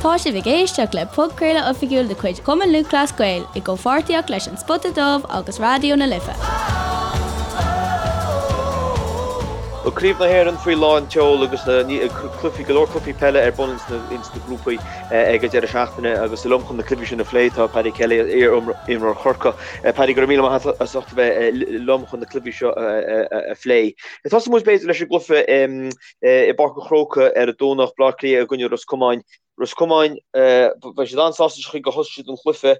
Tá sibh ag éisteacht le podchraoladh oifigiúil de chuid Chumann Lúthchleas Gael i gcomhpháirtíocht leis An Spota Dubh agus Raidió na Life. Bhuel, Craobh na hÉireann faoi lán tseoil agus cluichí, go leor cluichí peile ar bun ins na grúpaí ag an deireadh seachtaine agus liom chun na cluichí sin a phlé tá Paddy Kelly, iar-imreoir Chorcaí. Paddy, go raibh míle maith agat as ucht a bheith liom chun na cluichí seo a phlé. Tosóidh muid b'fhéidir leis an gcluiche i bPáirc an Chrócaigh ar an Domhnach, Bleá Cliath i gcoinne Ros Comáin. Ros Comáin, beidh siad an-sásta leis an chaoi gur thosaigh siad an chluiche.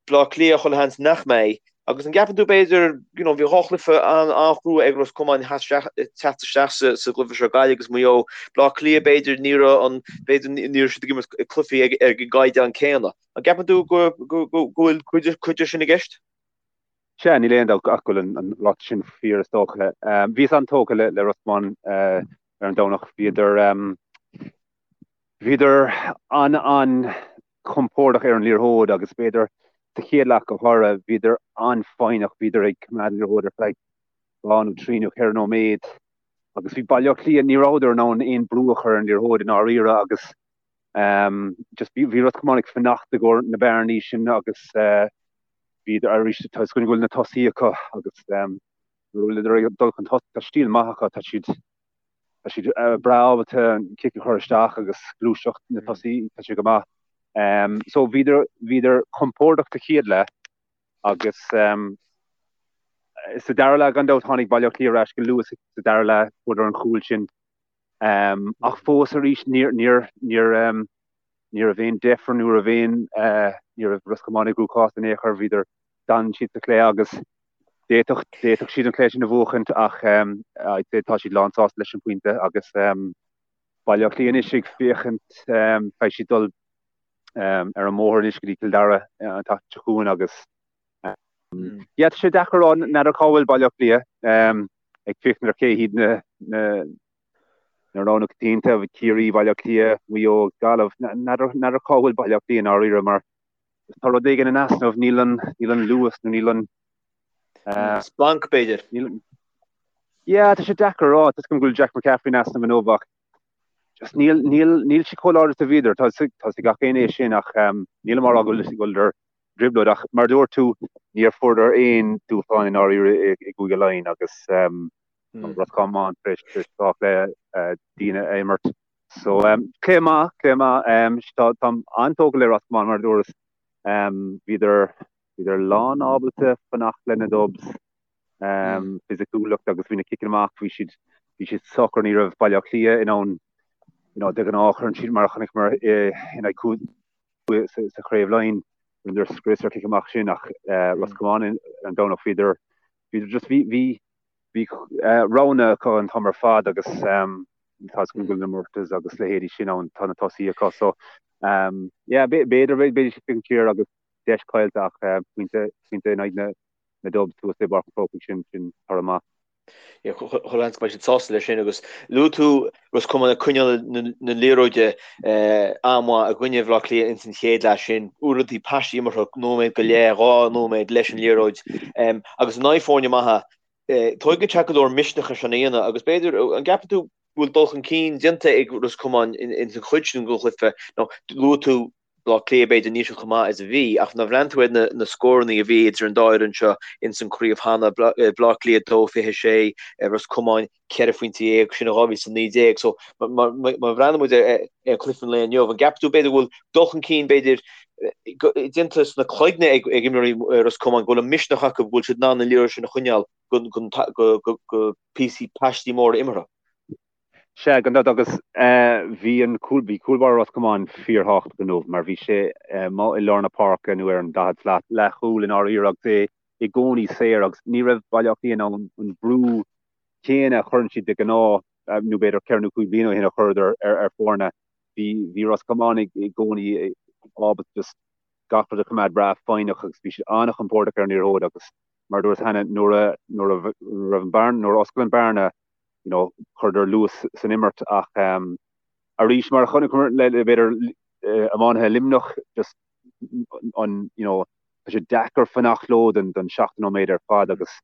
Bleá Cliath, chuile sheans nach mbeidh. Agus an gceapann tú b'fhéidir, you know, bhí dhá chluiche an-chrua ag Ros Comáin teacht isteach sa gcluiche seo, Gaillimh agus Maigh Eo. Bleá Cliath b'fhéidir ní raibh an, b'fhéidir ní raibh siad ag imirt cluichí ag an gcaighdeán céanna. An gceapann tú go bhfuil cuid de sin i gceist? Sea, níl aon dabht ach go bhfuil an ráiteas sin fíor is dócha. Bhíos an-tógtha le Ros Comáin ar an Domhnach. Bhíodar bhíodar an-an-chompordach ar an liathróid agus b'fhéidir sa chéad leath go háirithe bhíodar an-fhoighneach, bhíodar ag coimeád an liathróid ar feadh 2 nó 3 nó 4 nóiméad agus bhí Baile Átha Cliath, ní rabhadar in ann aon brú a chur ar an liathróid i ndáiríre agus just bhí Ros Comáin ag fanacht i gcomhair na bearnaí sin agus Bhíodar arís, tá 'fhios againn go bhfuil na tosaithe acu agus nuair a bhfuileadar ag dul chun tosaigh, tá stíl maith acu, tá siad tá siad breá ábalta an cic a chur isteach agus gluaiseacht na tosaithe, tá sé go maith. So bhíodar bhíodar compordach sa chéad leath agus sa dara leath gan dabht tháinig Baile Átha Cliath ar ais go luath sa dara leath, fuaireadar an chúl sin. Ach fós arís níor níor níor Ní raibh aon deifir, ní raibh aon, ní raibh Ros Comáin i gcruachás in aon chor, bhíodar, d'fhan siad sa chluiche agus d'fhéadfadh, d'fhéadfadh siad an cluiche sin a bhuachaint ach I'd say tá siad lán sásta leis an bpointe agus Baile Átha Cliath anois ag féachaint, beidh siad dul ar an mbóthar anois go dtí Cill Dara an tseachtain seo chugainn agus yeah tá sé deacair a rá, n'fheadar cá bhfuil Baile Átha Cliath ag féachaint ar cé hiad na, na, Na roghanna coitianta, Ciarraí, Baile Átha Cliath, Maigh Eo agus Gaillimh. N'fheadar cá bhfuil Baile Átha Cliath i ndáiríre mar tá rud éigin in easnamh, níl an, níl an luas nó níl an. Splanc, b'fhéidir. Yeah, tá sé deacair a rá. Tá 'fhios agam go bhfuil Jack McCaffrey in easnamh inniu ach just níl, níl, níl siad chomh láidir is a bhíodar. Tá 'fhios ag gach éinne é sin ach nílim á rá go bhfuil, go bhfuileadar i dtrioblóid ach mar a dúirt tú, níor fuaireadar aon dúshlán i ndáiríre i gCúige Laighean agus Ros Comáin tar éis dhá chluiche diana a imirt. So cluiche maith, cluiche maith. Táim an-tógtha le Ros Comáin mar a dúras. Bhíodar bhíodar lán ábalta fanacht le na Dubs. Fisiciúlacht agus bhí na ciceanna amach, bhí siad bhí siad socair, ní raibh Baile Átha Cliath in ann you know, de ghnáth cuireann siad mar a chonaiceamar in aghaidh sa Chraobh Laighean, rinneadar scrios ar chic amach sin ach Ros Comáin ar an Domhnach bhíodar bhíodar just bhí bhí Bhí roghanna acu an t-am ar fad agus tá 'fhios againn go bhfuil na Murtaghs agus leithéidí sin ann, tá na tosaithe acu so yeah b'fhéidir beidh siad ag siar agus deis caillte ach pointe pointe in aghaidh na Dubs thuas i bPáirc an Chrócaigh sin sin toradh maith. Yeah, chuile sheans go mbeidh siad sásta leis sin agus luaigh tú Ros Comáin ag coinneáil na liathróide an-mhaith i gcoinne Bhaile Átha Cliath ins an chéad leath sin. Uaireanta paistí imeartha nóiméad go leith, 2 nóiméad leis an liathróid agus in aghaidh foirne maithe tóigeann sé go leor misneach é sin a dhéanamh agus b'fhéidir, an gceapann tú go bhfuil dul chun cinn déanta ag Ros Comáin ins an chuid sin den chluiche nó luaigh tú Baile Átha Cliath, b'fhéidir, níl siad chomh maith is a bhí, ach nuair a bhreathnaíonn tú ar na scóranna a bhí idir an dá fhoireann seo ins an chraobh cheana, Baile Átha Cliath 2-26, Ros Comáin 14 phointe, sin in 2019. So, má bhreathnaíonn muid ar chluiche an lae inniu, an gceapann tú, b'fhéidir, go bhfuil dul chun cinn, b'fhéidir, déanta sna cloigne ag imreoirí Ros Comáin, go bhfuil an misneach acu, go bhfuil siad in ann an liathróid sin a choinneáil go píosaí paistí móra imeartha? Sea, gan dabht, agus bhí an cúl, bhí cúl báire Ros Comáin fíorthábhachtach inniu mar bhí sé amuigh i lár na páirce nó ar an 40 slat, leathchúl i ndáiríre agus é i gcónaí saor agus ní raibh Baile Átha Cliath in ann an brú céanna a chuireann siad de ghnáth, nó b'fhéidir ceithre nó cúig bliana ó shin a chuireadar ar foirne. Bhí, bhí Ros Comáin i gcónaí ábalta just gach rud a choimeád breá foighneach agus bhí siad an-chompordach ar an liathróid agus mar a dúras cheana nuair a, nuair a raibh an bearna, nuair a oscail an bearna, you know, chuireadar luas san imirt ach arís mar a chonaiceamar le b'fhéidir iománaithe Luimneach just an you know, tá sé deacair fanacht leo don don 70 nóiméad ar fad agus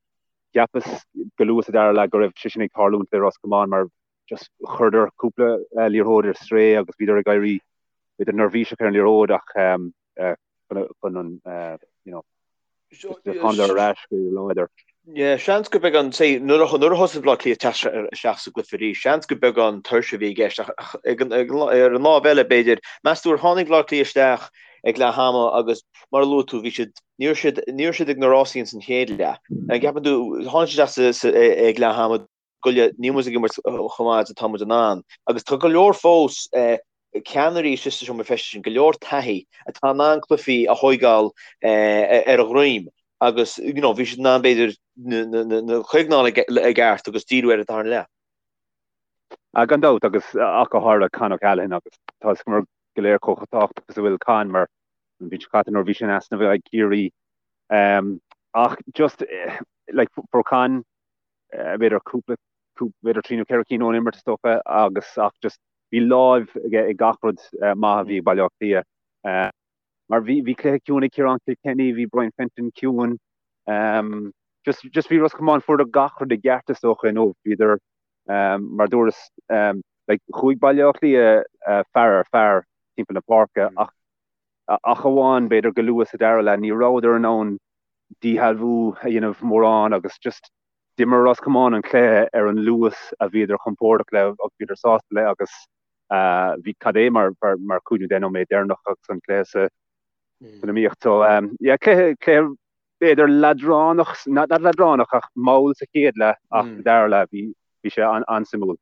cheapas go luath sa dara leath go raibh sé sin ag tarlúint le Ros Comáin mar just chuireadar cúpla liathróid ar strae agus bhíodar ag éirí. b'fhéidir neirbhíseach ar an liathróid ach chun an you know tháinig ar ais go láidir. Yeah, seans gur beagán, say, nuair a nuair a thosaigh Baile Átha Cliath teacht isteach sa gcluiche arís, seans gur beagán tuirse a bhí i gceist ach ag an, ar an lámh eile, b'fhéidir, meas tú ar tháinig Baile Átha Cliath isteach ag leath ama agus mar a luaigh tú, bhí siad, ní raibh siad, ní raibh siad ag na rásaí ins an chéad leath. An gceapann tú, tháinig siad isteach sa, sa, ag leath ama, goile, níl muid ag imirt chomh maith is atá muid in ann. Agus tá go leor fós ceannairí istigh sa seomra feistis sin, go leor taithí, atá in ann cluichí a thóigeáil ar a dhroim agus you know bhí siad in ann b'fhéidir na coigneáil i gceart agus díriú ar an darna leath. Ah, gan dabht, agus ach go háirithe Con O'Callaghan agus tá a fhios againn go léir chomh tábhachtach is a bhfuil Con mar an bhliain seo caite nuair a bhí sé in easnamh ag Ciarraí. Ach just like fuair Con b'fhéidir cúpla, b'fhéidir trí nó ceithre cinn ón imirt is dócha agus ach just bhí láimh aige ag gach rud maith a bhí ag Baile Átha Cliath. Mar bhí bhí cluiche ciúin ag Ciarán Kilkenny, bhí Brian Fenton ciúin. Just just bhí Ros Comáin fuaireadar gach rud i gceart is dócha inniu. Bhíodar mar dúras like chuaigh Baile Átha Cliath fear ar fear timpeall na páirce ach ach amháin b'fhéidir go luath sa dara leath ní rabhadar in ann díshealbhú a dhéanamh mórán agus just d'imir Ros Comáin an cluiche ar an luas a bhíodar compordach le agus bhíodar sásta le agus bhí cad é mar mar 5 nó 10 nóiméad deireanach agus an cluiche sa san iomaíocht. So yeah cluiche cluiche b'fhéidir leadránach not leadránach ach mall sa chéad leath ach sa dara leath bhí bhí sé an-suimiúil.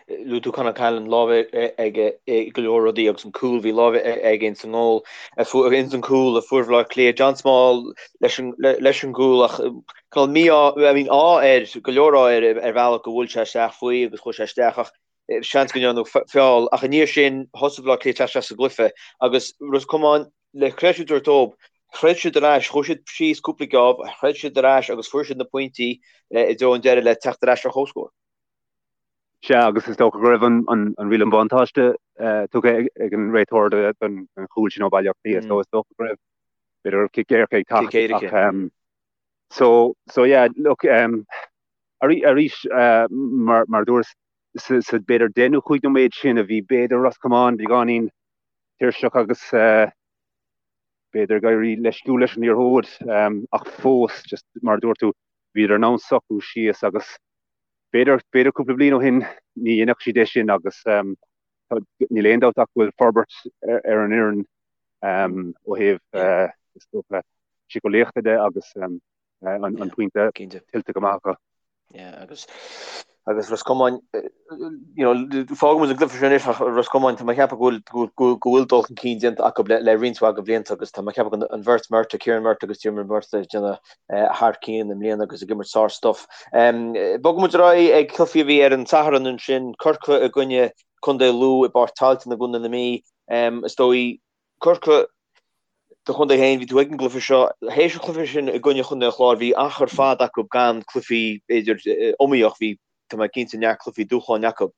Luaigh tú Con O'Callaghan, lámh aige i go leor rudaí agus an cúl, bhí lámh aige ins an ngól, ins an cúl a fuair Bhaile Átha Cliath, John Small leis an leis an gcúl ach cineál mí-ádh, I mean ádh air, go leor ádh air ar bhealach go bhfuil sé isteach faoi agus chuaigh sé isteach ach seans go ndearnadh feall ach i ndiaidh sin thosaigh Baile Átha Cliath teacht isteach sa gcluiche agus Ros Comáin le creidiúint a thabhairt dóibh, throid siad ar ais, chuaigh siad síos cúpla geábh, throid siad ar ais agus fuair siad na pointí i dtreo an deiridh le teacht ar ais ar comhscór. Sea, agus is dócha go raibh an riail an bhuntáiste tugtha ag an réiteoir don chúl sin ó Bhaile Átha Cliath, so is dócha go raibh, b'fhéidir go raibh cic éirice ag teacht ach so, so yeah, look, arís, mar a dúras, sa b'fhéidir 10 nó 5 nóiméad sin a bhí b'fhéidir Ros Comáin beagáinín tuirseach agus b'fhéidir ag éirí leisciúil leis an liathróid ach fós, just mar a dúirt tú, bhíodar in ann socrú síos agus B'fhéidir, b'fhéidir cúpla bliain ó shin ní dhéanfadh siad é sin agus níl aon dabht ach go bhfuil forbairt ar an fhoireann ó thaobh is dócha síceolaíochta de agus an pointe tuillte go maith acu. Yeah, agus agus Ros Comáin, you know, fágfaidh muid an gcluiche sin anois ach Ros Comáin, tá mé ag ceapadh go bhfuil go bhfuil dul chun cinn déanta acu le le roinnt mhaith de bhlianta agus tá mé ag ceapadh an bheirt Murtagh, Kieran Murtagh agus Diarmuid Murtagh ag déanamh thar cionn i mbliana agus ag imirt sár-stuif. Bogfaidh muid ar aghaidh ag cluichí a bhí ar an Satharn ansin, Corcaigh i gcoinne Contae Lú i bPáirc Tailteann i gContae na Mí. Is dóigh, Corcaigh do chontae féin, bhí tú ag an gcluiche seo. Théis an chluiche sin i gcoinne Chontae an Chláir, bhí achar fada acu gan cluichí, b'fhéidir, iomaíoch, bhí, tá mé cinnte, neart cluichí dúshláin acu.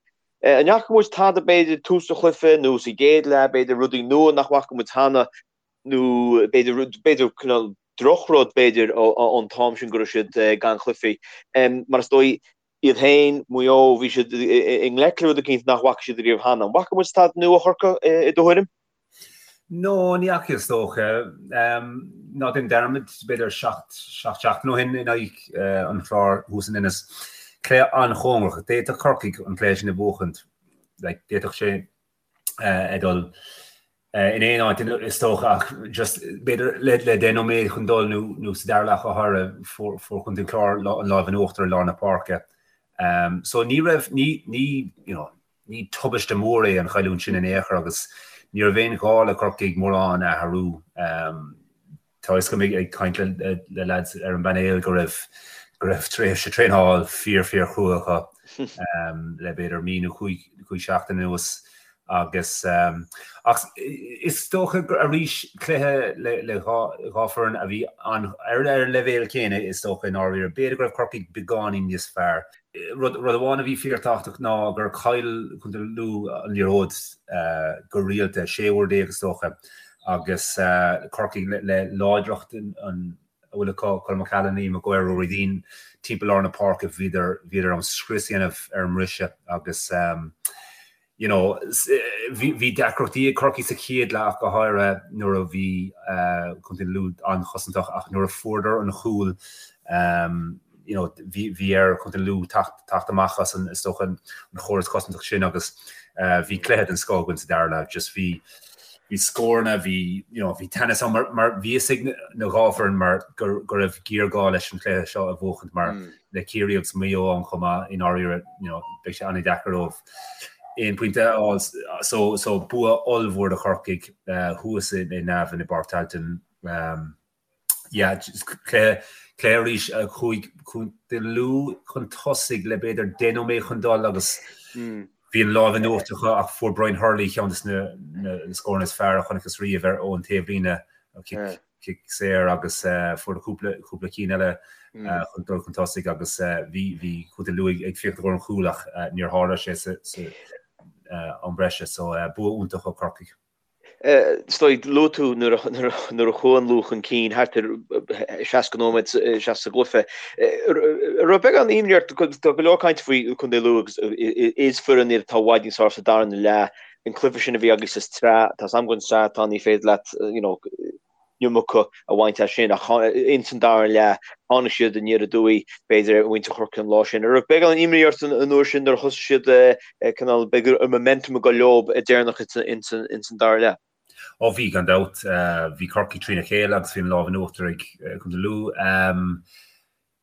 An bhfaca muid tada, b'fhéidir, tús an chluiche nó sa gcéad leath, b'fhéidir, rudaí nua nach bhfaca muid cheana nó b'fhéidir, b'fhéidir, cineál drochrud, b'fhéidir, ón t-am sin go raibh siad gan chluichí. Mar is dóigh, iad féin, Maigh Eo, bhí siad i ngleic le rud eicínt nach bhfaca siad ariamh cheana. An bhfaca muid tada nua ó Chorcaigh, i do thuairim? No, ní fhaca is dócha. Ná déan dearmad, b'fhéidir seacht seachtain ó shin in aghaidh an Chláir thuas in Ennis. Cluiche an-chóngarach. D'fhéadfadh Corcaigh an cluiche sin a bhuachaint. Like, d'fhéadfadh sé a dhul in aon áit is dócha ach just b'fhéidir le 10 nóiméad chun dul nó sa dara leath go háirithe fuair Contae an Chláir an lámh in uachtar i lár na páirce. So ní raibh, ní, ní, you know, ní tubaiste mór é an chailliúint sin in aon chor agus ní raibh aon ghá le Corcaigh mórán a athrú. Tá a fhios agam ag caint le lads ar an bpainéal go raibh go raibh tréimhse traenáil fíor fíor chrua acu le b'fhéidir mí nó chúig seachtain anuas agus ach is dócha gur arís cluiche le le dhá dhá foireann a bhí an ar ar an leibhéal céanna is dócha i ndáiríre. B'fhéidir go raibh Corcaigh beagáinín níos fearr. Rud amháin a bhí fíorthábhachtach ná gur chaill Contae Lú an liathróid go rialta, 16 uair is dócha, agus Corcaigh le láidreacht a bhfuil acu, Colm O'Callaghan, Liam Maguire, Ruairí Deane, timpeall lár na páirce, bhíodar in ann scrios a dhéanamh ar an mbriseadh agus. You know, bhí deacrachtaí ag Corcaigh sa chéad leath ach go háirithe nuair a bhí Contae Lú an-chosantach ach nuair a fuaireadar an chúl, you know, bhí ar Chontae Lú teacht amach as an, is dócha, an chóras cosantach sin agus bhí cluiche den scoth againn sa dara leath. Just bhí bhí scóranna, bhí, you know, bhí teannas ann mar mar bhí fhios ag na dhá foireann mar go go raibh géarghá leis an chluiche seo a bhuachaint mar le Ciarraí agus Maigh Eo ann chomh maith i ndáiríre, you know, beidh sé an-deacair dóibh aon pointe a fháil. So so bua ollmhór do Chorcaigh thuas i nDamhain i bPáirc Tailteann. Yeah, cluiche cluiche arís a chuaigh Contae Lú chun tosaigh le b'fhéidir 10 nóiméad chun dul agus bhí an lámh in uachtar acu ach fuair Brian Hurley ceann de na scóranna is fearr a chonacthas riamh ar ón taobhlíne, cic cic saor agus fuair cúpla cúpla cinn eile chun dul chun tosaigh agus bhí bhí Contae Lú ag féachaint i gcomhair an chúil ach níor tharla sé sa sa am breise so bua iontach ó Corcaigh. Is dóigh, luaigh tú nuair a chuaigh an Lú chun cinn thart ar 60 nóiméad isteach sa gcluiche. An raibh beagán imní ort, tá go leor cainte faoi Chontae Lú agus is foireann iad atá i bhfad níos fearr sa darna leath. An cluiche sin a bhí agaibh sa tsraith, tá 's agam go an tsraith atá ní féidir leat you know, iomarca a bhaint as sin ach ins an dara leath tháinig siad aniar aduaidh b'fhéidir ar mhuintir Chorcaí an lá sin. An raibh beagán imní ort an uair sin nuair a thosaigh siad cineál b'fhéidir an momentum ag dul leo deireanach ins an dara leath? Ó bhí, gan dabht. Bhí Corcaigh trína chéile agus bhí an lámh in uachtar ag Contae Lú.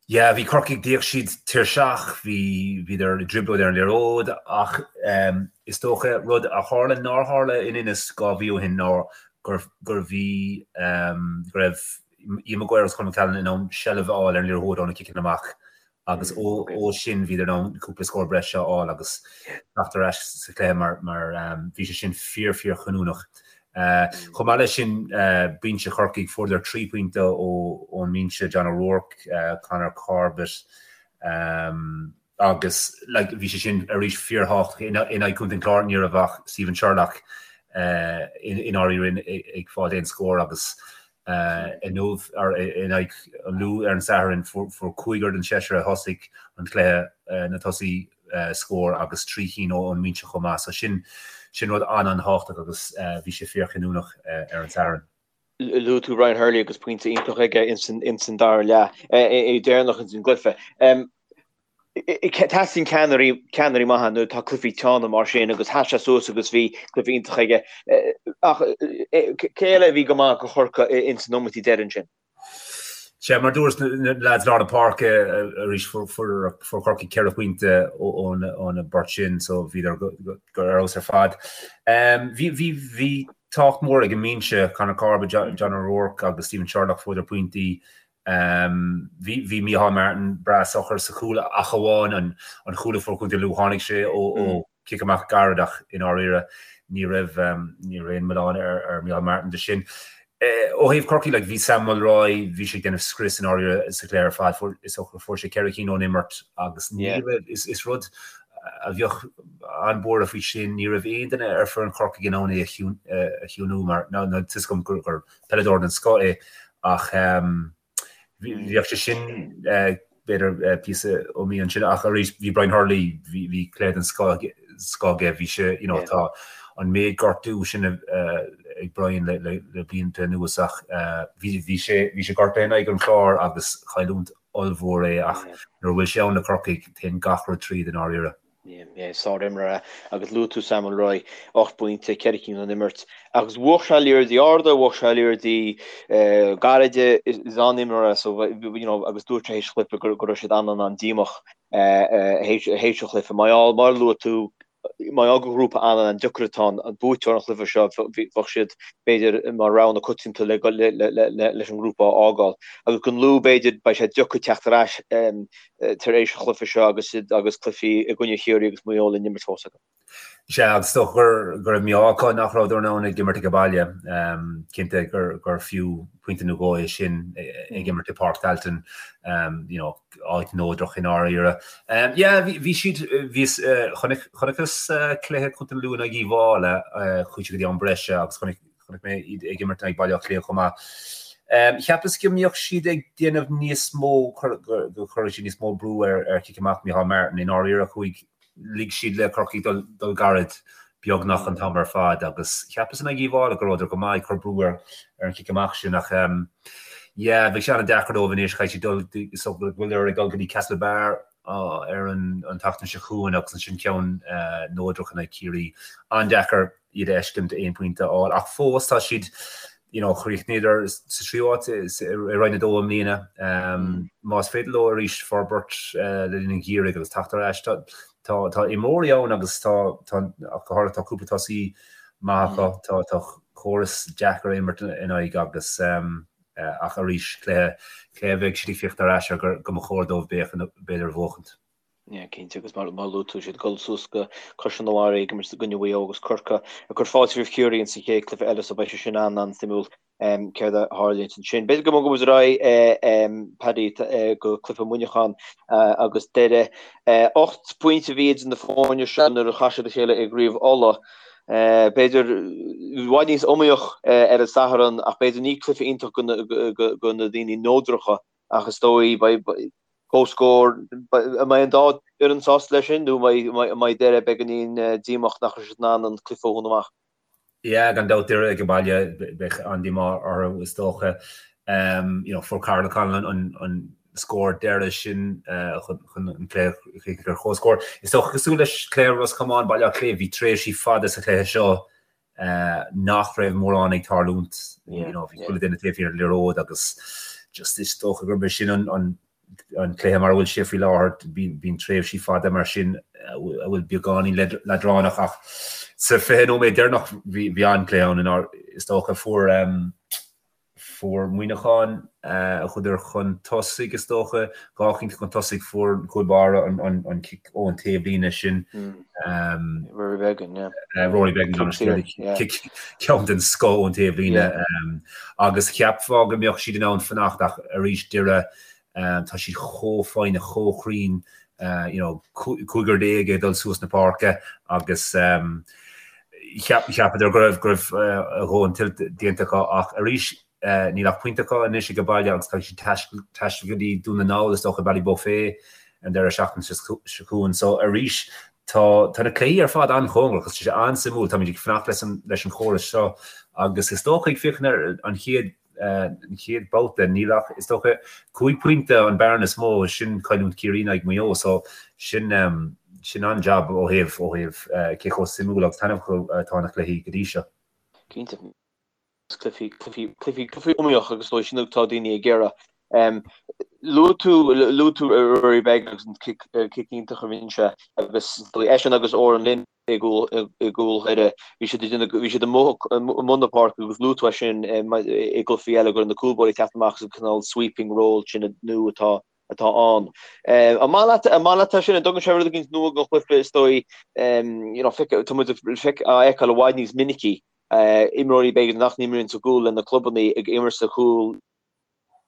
Yeah, bhí Corcaigh, d'fhéach siad tuirseach, bhí, bhíodar i dtrioblóid ar an liathróid ach is dócha rud a tharla nár tharla in Inis 2 mhí ó shin ná gur, gur bhí, go raibh Ian Maguire agus Colm McCallion in ann seilbh a fháil ar an liathróid ó na ciceanna amach agus ó, ó sin bhíodar in ann cúpla scór breise a fháil agus teacht ar ais sa chluiche mar, mar bhí sé sin fíor, fíor chinniúnach. Chomh maith leis sin, binse Chorcaigh, fuaireadar 3 pointe ón mbinse, John O'Rourke, Conor Corbett agus like bhí sé sin arís fíorthábhachtach in aghaidh Chontae an Chláir, ní raibh ach Stephen Sherlock i ndáiríre ag fáil aon scór agus inniu in aghaidh an Lú ar an Satharn fuair cúigear den seisear a thosaigh an cluiche na tosaithe scór agus 3 chinn ón mbinse chomh maith. So sin sin rud an-an-thábhachtach agus bhí sé fíorchinniúnach ar an Satharn. Luaigh tú Brian Hurley agus pointe iontach aige ins an dara leath, é deireanach ins an gcluiche. Teastaíonn ceannairí ceannairí maithe nuair atá cluichí teanna mar sin agus sheas sé suas agus bhí cluiche iontach aige. Ach cé eile a bhí go maith do Chorcaigh ins na nóiméidí deiridh ansin? Sea, mar dúras, na leaids lár na páirce arís fuair Corcaigh 4 phointe óna bport sin so bhíodar go ar fheabhas ar fad. Bhí bhí bhí tábhacht mór ag an mbinse, Conor Corbett, John O'Rourke agus Stephen Sherlock fuaireadar pointí. Bhí bhí Micheál Martin breá socair sa chúl ach amháin an an chúl a fuair Contae Lú tháinig sé ó ó cic amach gairid ach i ndáiríre ní raibh ní raibh aon mhilleán ar ar Micheál Martin de sin. Ó thaobh Chorcaí like bhí Sam Mulroy bhí sé ag déanamh scrios i ndáiríre sa chluiche ar fad fuair is dócha fuair sé 4 cinn ón imirt agus ní raibh is is rud a bheadh an-buartha faoi sin ní raibh aon duine ar foireann Chorcaigh in ann é a chiúnú mar ná tá 'fhios agam gur gur peileadóir den scoth é ach bheadh sé sin b'fhéidir píosa iomaí ansin ach arís bhí Brian Hurley bhí cluiche den scoth aige bhí sé you know tá an méid gortú sin ag Brian le le blianta anuas ach bhí bhí sé bhí sé gortaithe in aghaidh an Chláir agus cailliúint ollmhór é ach nuair a bhfuil sé ann le Corcaigh téann gach rud tríd i ndáiríre. Sár-imreoir é agus luaigh tú Sam Mulroy, 8 bpointe, 4 cinn ón imirt. Agus bhuach sé liathróidí arda, bhuach sé liathróidí gairide, is an-imreoir é so you know agus dúirt sé théis an chluiche go raibh siad an-an-an-díomách théis an chluiche. Mar gheall, mar a luaigh tú, mar gheall gur ghrúpa an-an-deacair atá ann, an buaiteoir an chluiche seo, bheadh siad b'fhéidir mar rogha na coitianta leis an ngrúpa a fhágáil. Agus don Lú b'fhéidir beidh sé deacair teacht ar ais tar éis an chluiche seo agus agus cluichí i gcoinne Chiarraí agus Maigh Eo le n-imirt fós acu. Sea, agus is dócha gur go raibh mí-ádh acu nach rabhadar in ann ag imirt ag baile. Cinnte gur gur fiú pointe nó dhó é sin ag imirt i Páirc Tailteann, you know, áit neodrach i ndáiríre. Yeah, bhí bhí siad bhíos chonaic chonaiceas cluiche Chontae na Lú in aghaidh Uíbh Fhailí, chuaigh siad go dtí am breise agus chonaic Chonaic mé iad ag imirt in aghaidh Baile Átha Cliath chomh maith. Cheapas go mbeadh siad ag déanamh níos mó, go gcuirfeadh siad níos mó brú ar chic amach Micheál Martin. I ndáiríre, chuaigh, lig siad le Corcaigh dul gairid. beagnach an t-am ar fad agus cheapas in aghaidh Uíbh Fhailí go rabhadar go maith ag cur brú ar ar an chic amach sin ach yeah bheadh sé an-deacair dóibh anois caithfidh siad dul so go bhfuileadar ag dul go dtí Castlebar ar an an tseachtain seo chugainn agus ansin ceann neodrach in aghaidh Ciarraí. An-deacair iad a fheiscint aon phointe a fháil ach fós tá siad you know, chríochnaíodar sa tríú háit i Roinn 2 i mbliana. Más féidir leo arís forbairt le linn an gheimhridh agus teacht ar ais, tá tá imreoirí ann agus tá tá ach go háirithe tá cúpla tosaí maith acu, tá tá córas deacair imirt in aghaidh agus ach arís cluiche cluiche a bheidh siad ag féachaint ar ais ar go mba chóir dóibh b'fhéidir a bhuachaint. Yeah, cinnte, agus mar mar luaigh tú siad ag dul suas go Caisleán an Bharraigh ag imirt i gcoinne Mhaigh Eo agus Corcaigh ag cur fáilte roimh Chiarraí ins an chéad cluiche eile so beidh sé sin an-an-suimiúil céard a tharlaíonns ansin. B'fhéidir go mbogfaidh muid ar aghaidh Paddy go cluiche Mhuineacháin agus Doire. 8 bpointe a bhí idir na foirne seo nuair a chas siad a chéile i gCraobh Uladh. B'fhéidir i bhfad níos iomaíoch ar an Satharn ach b'fhéidir ní cluiche iontach do na daoine neodracha ach is dóigh beidh comhscór, an mbeidh an dá fhoireann sásta leis sin nó an mbeidh Doire beagáinín díomách nach raibh siad in ann an cluiche a dhúnadh amach? Yeah, gan dabht Doire ag an baile, beidh an-díomá orthu is dócha. You know, fuair Karl O'Connell an, an scór deiridh sin chun an cluiche a chríochnú ar comhscór. Is dócha cosúil leis cluiche Ros Comáin, Baile Átha Cliath, bhí tréimhsí fada sa chluiche seo nach raibh mórán ag tarlúint. You know, bhí chuile duine taobh thiar den liathróid agus just is dócha gurb é sin an, an, an cluiche mar a bhfuil sé faoi láthair, bíonn tréimhsí fada mar sin a bhfuil beagáinín leadránach ach sa 20 nóiméad deireanach bhí, bhí an-chluiche ann inar is dócha fuair Fuair Muineachán, chuadar chun tosaigh is dócha, dhá phointe chun tosaigh, fuair an cúl báire an cic ón taobhlíne sin. Rory Beggan, yeah. Rory Beggan, cic ceann den scoth ón taobhlíne. Agus cheapfá go mbeadh siad in ann fanacht ach arís Doire, tá siad chomh foighneach, chomh cruinn, you know, cúigear déag ag dul suas na páirce agus Cheapadar go raibh go raibh a dhóthain tuillte déanta acu ach arís níl ach pointe acu anois ag baile agus caithfidh siad taisteal go dtí Dún na nGall is dócha Ballybofey an deireadh seachtaine seo chugainn. So arís tá tá na cluichí ar fad an-chóngarach agus tá sé an-suimiúil. Táimid ag fanacht leis an leis an chóras seo agus is dócha ag féachaint ar an chéad an chéad babhta, níl ach, is dócha, 5 pointe an bearna is mó, sin cailliúint Ciarraí in aghaidh Maigh Eo, so sin, sin an-jab ó thaobh, ó thaobh cé chomh suimiúil agus taitneamhach atá na cluichí go dtí seo. Cinnte. Cluichí, cluichí, cluichí, cluichí iomaíoch agus is dóigh sin atá daoine ag iarraidh. Luaigh tú, luaigh tú Rory Beggan agus an cic, cic iontach a rinne sé agus is dóigh eisean agus Odhrán Lynn, i gcúl Dhoire. Bhí siad bhí siad amuigh i mbun na páirce agus luaigh tú é sin i gcluichí eile go raibh na cúlbáirí ag teacht amach sa cineál sweeping role sin nua atá atá ann. An maith leat an maith leat é sin an dtugann sé rud éigin nua don chluiche is dóigh you know tá muid á fheiceáil i bhfad níos minicí imreoirí b'fhéidir nach n-imríonn sa gcúl le na clubanna ag imirt sa chúl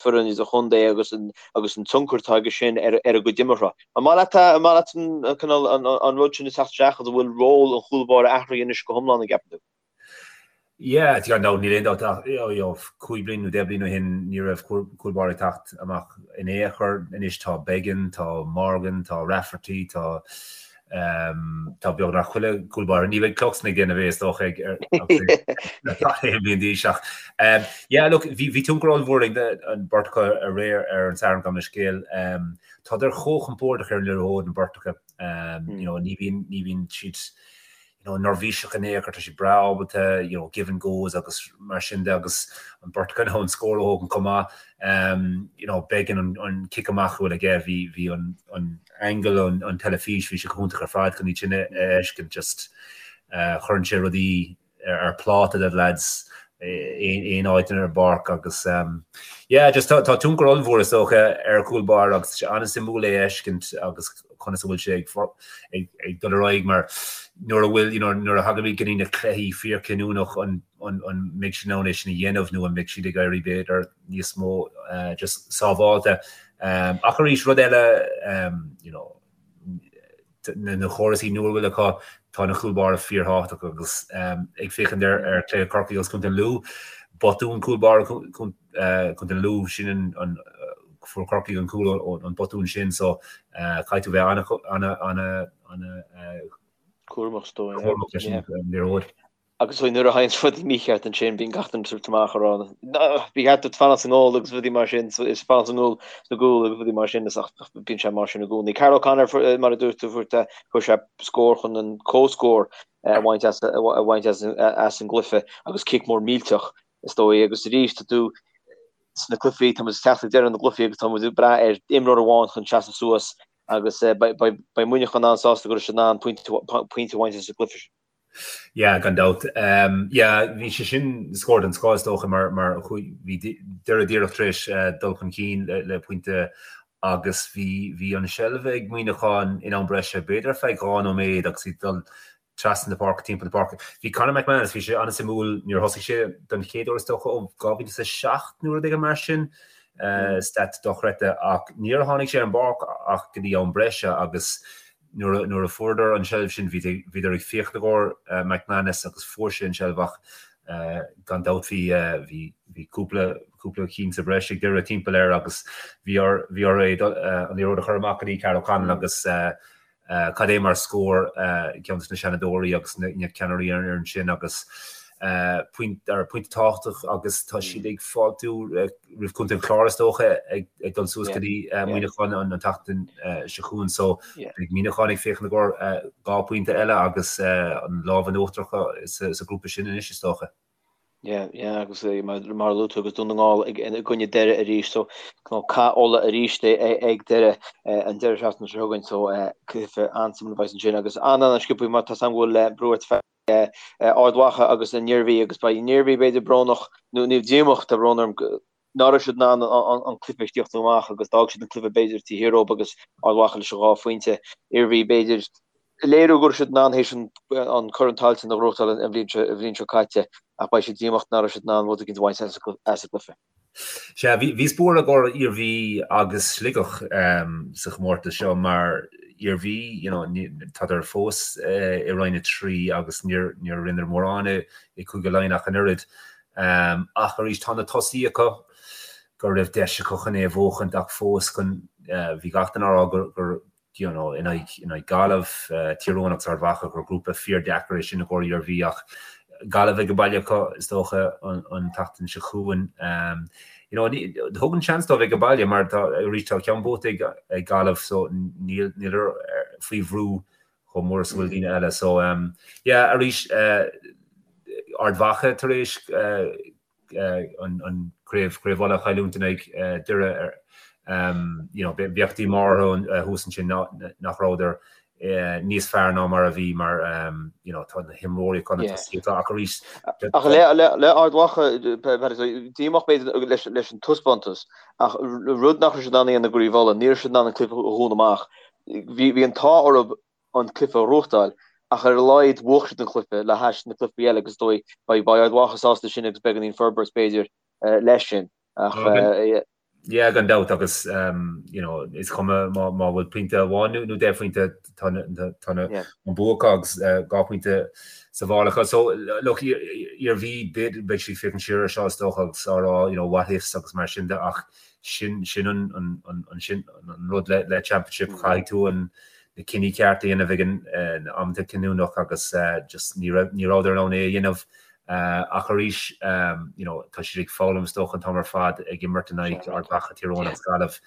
foireann idirchontae agus an agus an tionchar atá aige sin ar ar a gcuid imeartha. An maith leat an maith leat an cineál an an rud sin ag teacht isteach agus an bhfuil ról an chúl báire athraithe anois go hiomlán an gceapann tú? Yeah, gan dabht, níl aon dabht ach you know, 5 bliain nó 10 bliain ó shin ní raibh cúl báire ag teacht amach in aon chor. Anois tá Beggan, tá Morgan, tá Rafferty, tá Tá beagnach chuile cúl báire. Ní bheidh Cluxton ag déanamh é is dócha ag aon bhliain d'aois ach yeah look bhí bhí tionchar ollmhór ag an beirt acu aréir ar an Satharn gabh mo leithscéal. Tádar chomh compordach ar an liathróid an bheirt acu. You know ní bhíonn ní bhíonn siad you know, neirbhíseach in aon chor, tá siad breá ábalta, you know, give and goes agus mar sin de agus an beirt acu in ann scór a thógaint chomh maith. Um, you know, Beggan an, an cic amach a bhfuil aige, bhí, bhí an, an angle an, an teilifís, bhí sé go hiontach ar fad chun iad sin a fheiscint, just uh, chuireann sé rudaí ar, ar pláta do lads aon áit ar an bpáirc agus um, yeah, just tá, tá tionchar ollmhór is dócha ar chúl báire agus tá sé an-suimiúil é a fheiscint agus conas a bhfuil sé ag, ag dul ar aghaidh mar nuair a bhfuil, you know, nuair a thagaimid go dtí na cluichí fíorchinniúnach an, an, an mbeidh siad in ann é sin a dhéanamh nó an mbeidh siad ag éirí b'fhéidir níos mó uh, just sábháilte. Um, ach arís rud eile um, you know, na córasaí nua a bhfuil acu, tá na cúl báire fíorthábhachtach agus ag féachaint ar ar chluiche Chorcaí agus Contae Lú, botún cúl báire Contae Lú, sin an fuair Corcaigh an cúl ón botún sin so caithfidh tú bheith ana ana ana ana. Cúramach is dóigh. Cúramach leis an liathróid. Agus nuair a thagann rudaí mícheart ansin bíonn gach duine ag tabhairt amach ag rá ba cheart duit fanacht sa ngól agus rudaí mar sin is fanacht sa ngól sna gcúl agus rudaí mar sin is ach bíonn sé mar sin i gcónaí. Karl O'Connor mar a dúirt tú fuair fuair sé scór chun an comhscór a bhaint as a bhaint as as an gcluiche agus cic mór millteach is dóigh agus arís tá tú sna cluichí tá muid ag teacht ag deireadh na gcluichí agus tá muid ag brath ar imreoir amháin chun seasamh suas agus beidh Muineachán an-sásta go raibh siad in ann pointe a bhaint as an gcluiche sin. Yeah, gan dabht. Yeah, bhí sé sin scór den scoth is dócha mar mar chuaigh bhí Doire díreach tar éis dul chun cinn le le pointe agus bhí bhí an seilbh ag Muineachán in am breise b'fhéidir ar feadh 2 nóiméad agus iad dul trasna na páirce timpeall na páirce. Bhí Conor McManus, bhí sé an-suimiúil, níor thosaigh sé don chéad uair is dócha ó 2007 nó rud éigin mar sin, stat dochreidte ach níor tháinig sé ar an bpáirc ach go dtí am breise agus Nuair a fuaireadar an tseilbh sin bhíodar ag féachaint i gcomhair McManus agus fuair sé an tseilbh ach gan dabht bhí bhí cúpla cúpla cinn sa bhreis ag Doire timpeall air agus bhí bhí orthu é an liathróid a chur amach go dtí Karl O'Connell agus cad é mar scór ceann de na seanadóirí agus na ceannairí ar an fhoireann sin agus pointe tábhachtach agus tá siad ag fáiltiú roimh Chontae an Chláir is dócha ag dul suas go dtí Muineachán an tseachtain seo chugainn so beidh Muineachán ag féachaint i gcomhair 2 pointe eile agus an lámh in uachtar acu sa ghrúpa sin anois is dócha. Yeah, yeah, agus mar a luaigh tú agus Dún na nGall i gcoinne Doire arís so cath Uladh arís ag Doire an deireadh seachtaine seo chugainn so cluiche an-suimiúil a bheas ansin agus an-an-sciobtha mar tá 's agam go bhfuil brú ort Ard Mhacha agus an Iarmhí agus beidh an Iarmhí b'fhéidir brónach nó ní díomách tá brón orm nach raibh siad in ann an cluiche a thíocht amach agus d'fhág siad an cluiche b'fhéidir taobh thiar dóibh agus Ard Mhacha leis an dhá phointe. Iarmhí b'fhéidir léiriú go raibh siad in ann théis an Corn Tailteann a ghnóthachtáil an bhliain seo caite ach beidh siad díomách nach raibh siad in ann rud éicint a bhaint as an gcluiche. Sea, bhíos buartha i gcomhair Iarmhí agus Sligeach sa chomórtas seo mar Iarmhí, you know, tádar fós i Roinn 3 agus níor rinneadar mórán i Cúige Laighean ach an oiread. Ach arís, tá na tosaí acu go raibh deis acu chun é a bhuachaint ach fós chun, bhí gach duine á rá gur you know, in aghaidh, in aghaidh Gaillimh, Tír Eoghain agus Ard Mhacha, gur grúpa fíordheacair é sin i gcomhair Iarmhí ach Gaillimh ag baile acu, is dócha, an, an tseachtain seo chugainn. You know, ní, thugann seans dóibh ag baile mar tá, arís, tá ceann buaite ag, ag Gaillimh so níl, níl faoi bhrú chomh mór is a bhfuil daoine eile. So, yeah, arís, Ard Mhacha tar éis, an craobh Craobh Uladh a chailliúint in aghaidh Doire you know bheadh díomá orthu thuas ansin nach rabhadar níos fearr ná mar a bhí mar you know tá na himreoirí acu na tosaithe atá ach arís Ach le le Ard Mhacha díomách b'fhéidir leis leis an taispeántas ach rud nach raibh siad in ann a dhéanamh i gCraobh Uladh ní raibh siad in ann an cluiche a dhúnadh amach bhí bhí an t-ádh orthu an cluiche a ghnóthachtáil, ach ar a laghad bhuaigh siad an cluiche le hais na cluichí eile agus is dóigh beidh Ard Mhacha sásta sin agus beagáinín forbairt b'fhéidir leis sin. Ach Yeah, gan dabht agus you know, is cuma má má bhfuil pointe amháin nó 10 phointe tá tá an bua acu agus 2 phointe sa mhála acu. So look, Iarmhí beidh siad ag féachaint siar ar seo is dócha agus á rá you know, what ifs agus mar sin de ach sin sin an an an sin an rud le le championship caithfidh tú an na cinní cearta a dhéanamh ag an amanta cinniúnach agus just ní raibh ní rabhadar in ann é a dhéanamh ach arís you know tá siad ag foghlaim is dócha an t-am ar fad ag imirt in aghaidh Ard Mhacha, Tír Eoghain agus Gaillimh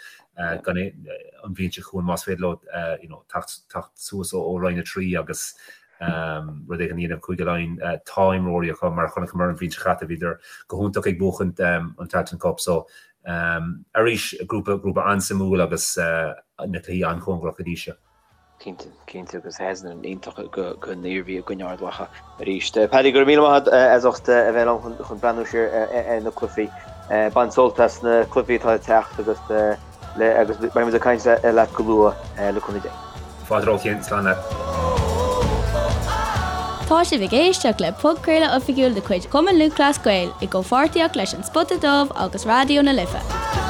gan an bhliain seo chugainn más féidir leo you know teacht teacht suas ó Roinn 3 agus rud éigin a dhéanamh Cúige Laighean tá imreoirí acu mar a chonaiceamar an bhliain seo caite bhíodar go hiontach ag buachaint an Tailteann Cup so Arís, grúpa, grúpa an-suimiúil agus na cluichí an-chóngarach go dtí seo. Cinnte, cinnte agus season iontach don Iarmhí i gcoinne Ard Mhacha arís. Paddy, go raibh míle maith agat as ucht a bheith liom chun breathnú siar ar na cluichí. Bain sult as na cluichí atá ag teacht agus agus beidh muid ag caint leat go luath le cúnamh Dé. Fáilte romhat, slán leat. Tá sibh ag éisteacht le podchraoladh oifigiúil de chuid Chumann Lúthchleas Gael i gcomhpháirtíocht leis An Spota Dubh agus Raidió na Life.